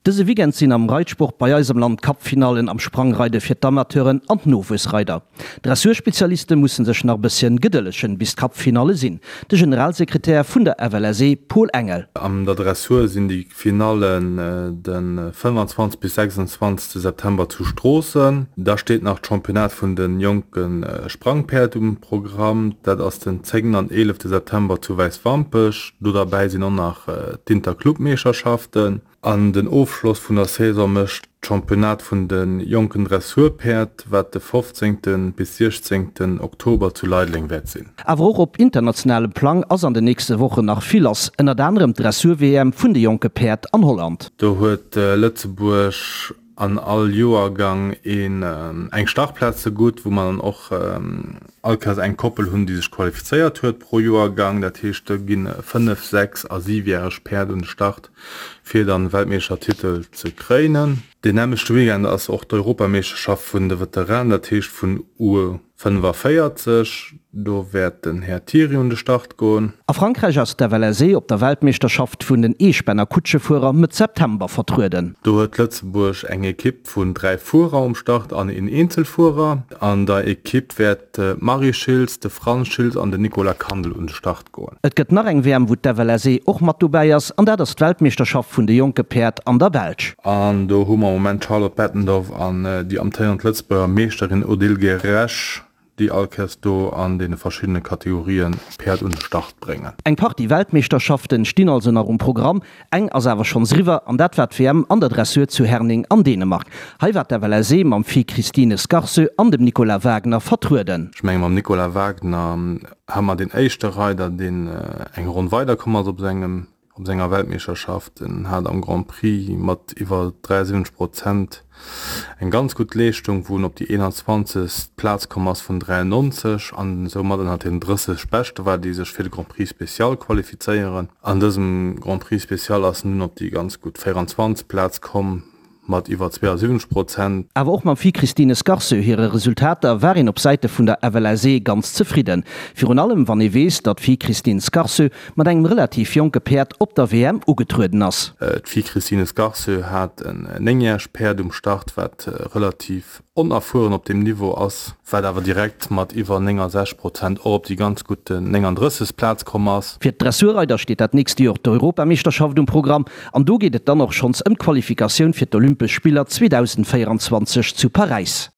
Dëse Weekend sinn am Reitsport bei eis am Land d'Cup-Finallen am Sprangreide fir d'Amateuren an d'Nowuessreider. D'Dressurspezialiste musse sech nach e bësschen gedëllegen, bis d'Cup-Finalle sinn. De Generalsekretär vun der FLSE, Paul Engel. An der Dressur sinn déi Finallen de 25 bis 26 September zu Stroossen. Da steet nach d'Championnat vun de jonke Sprangpäerd um Programm. Dat ass den 10 an 11 September zu Wäiswampech. Do derbäi sinn och nach d'Interclub-Meeschterschaften. An den Ofschloss vun der Saison mécht d'Championnat vun de jonken Dressurpäerd, wat de 15. Bis 16. Oktober zu Leideleng wäert sinn. Awer och op internationalem Plang ass an den nächste Wochen nach vill lass, ënnert anerem d'Dressur-WM vun de jonke Päerd an Holland. Do huet Lëtzebuerg an all Joergang een eng Startplaz zegutt, wou mer dann och all Kéiers eng Koppel hunn, déi sech qualifizéiert huet pro Joergang. Dat heescht, do gi fënnef-, sechs a siwjäreg Päerd un de Start, fir dann Weltmeeschtertitel ze kréinen. Deen nämmlechte Weekend ass och d'Europameeschterschaft vun de Veteranen, dat heescht vun U 45. Do wäert den Här Thiry un de Start goen. A Frankräich ass d'FLSE op der Weltmeeschterschaft vun den Eespänner Kutschefuerer Mëtt September vertrueden. Do huet Lëtzebuerg eng Ekipp vun 3 Fuerer um Start an een Eenzelfuerer. An der Ekipp wäert d'Marie Schiltz, de Franz Schiltz an den Nicolas Kandel un de Start goen. Et gëtt nach eng WM wou d'FLSE och mat dobäi ass an dat ass d'Weltmeeschterschaft vun de jonke Päerd an der Belsch. An do hu mer am Moment d'Charlotte Bettendorf an déi amtéierend Lëtzebuerger Meeschterin Odile Geresch, déi all Kéiers do an deene verschiddene Kategorien Päerd un de Start bréngen. Eng Partie Weltmeeschterschaften stinn also nach um Programm. Eng ass awer schonns eriwwer an dat war d'WM an der Dressur zu Herning an Dänemark. Hei war d'FLSE mam Fi Christine Scarse an dem Nicolas Wagner vertrueden. Ech menge mam Nicolas Wagner hu mer deen éischte Reider, deen eng Ronn weiderkomm ass op sengem op senger Weltmeeschterschaft. En hat am Grand Prix mat iwwer 73 Prozent eng ganz gutt Leeschtung, wou en op déi 21. Plaz komm ass vun 93 an soumat ënnert den 30 Beschte war, déi sech fir de Grand Prix Spécial qualifizéieren. An dësem Grand Prix Spécial ass en dunn op déi ganz gutt 24. Plaz komm mat iwwer 72 Prozent. Awer och mam Fi Christine Scarceux hire Resultater war een op Säite vun der FLSE ganz zefridden. Virun allem wann ee weess, datt d'Fi Christine Scarceux mat engem relativ jonke Päerd op der WM ugetrueden ass. D'Fi Christine Scarceux hat en néngjäregt Päerd um Start, wat relativ onerfueren op deem Niveau ass, wat awer direkt mat iwwer 69 Prozent och op déi ganz gutt 39. Plaz komm ass. Fir d'Dressurreider steet dat nächst Joer d'Europameeschterschaft um Programm an do geet et dann och schonns ëm d'Qualifikatioun fir d'Olympesch Spiller 2024 zu Paräis.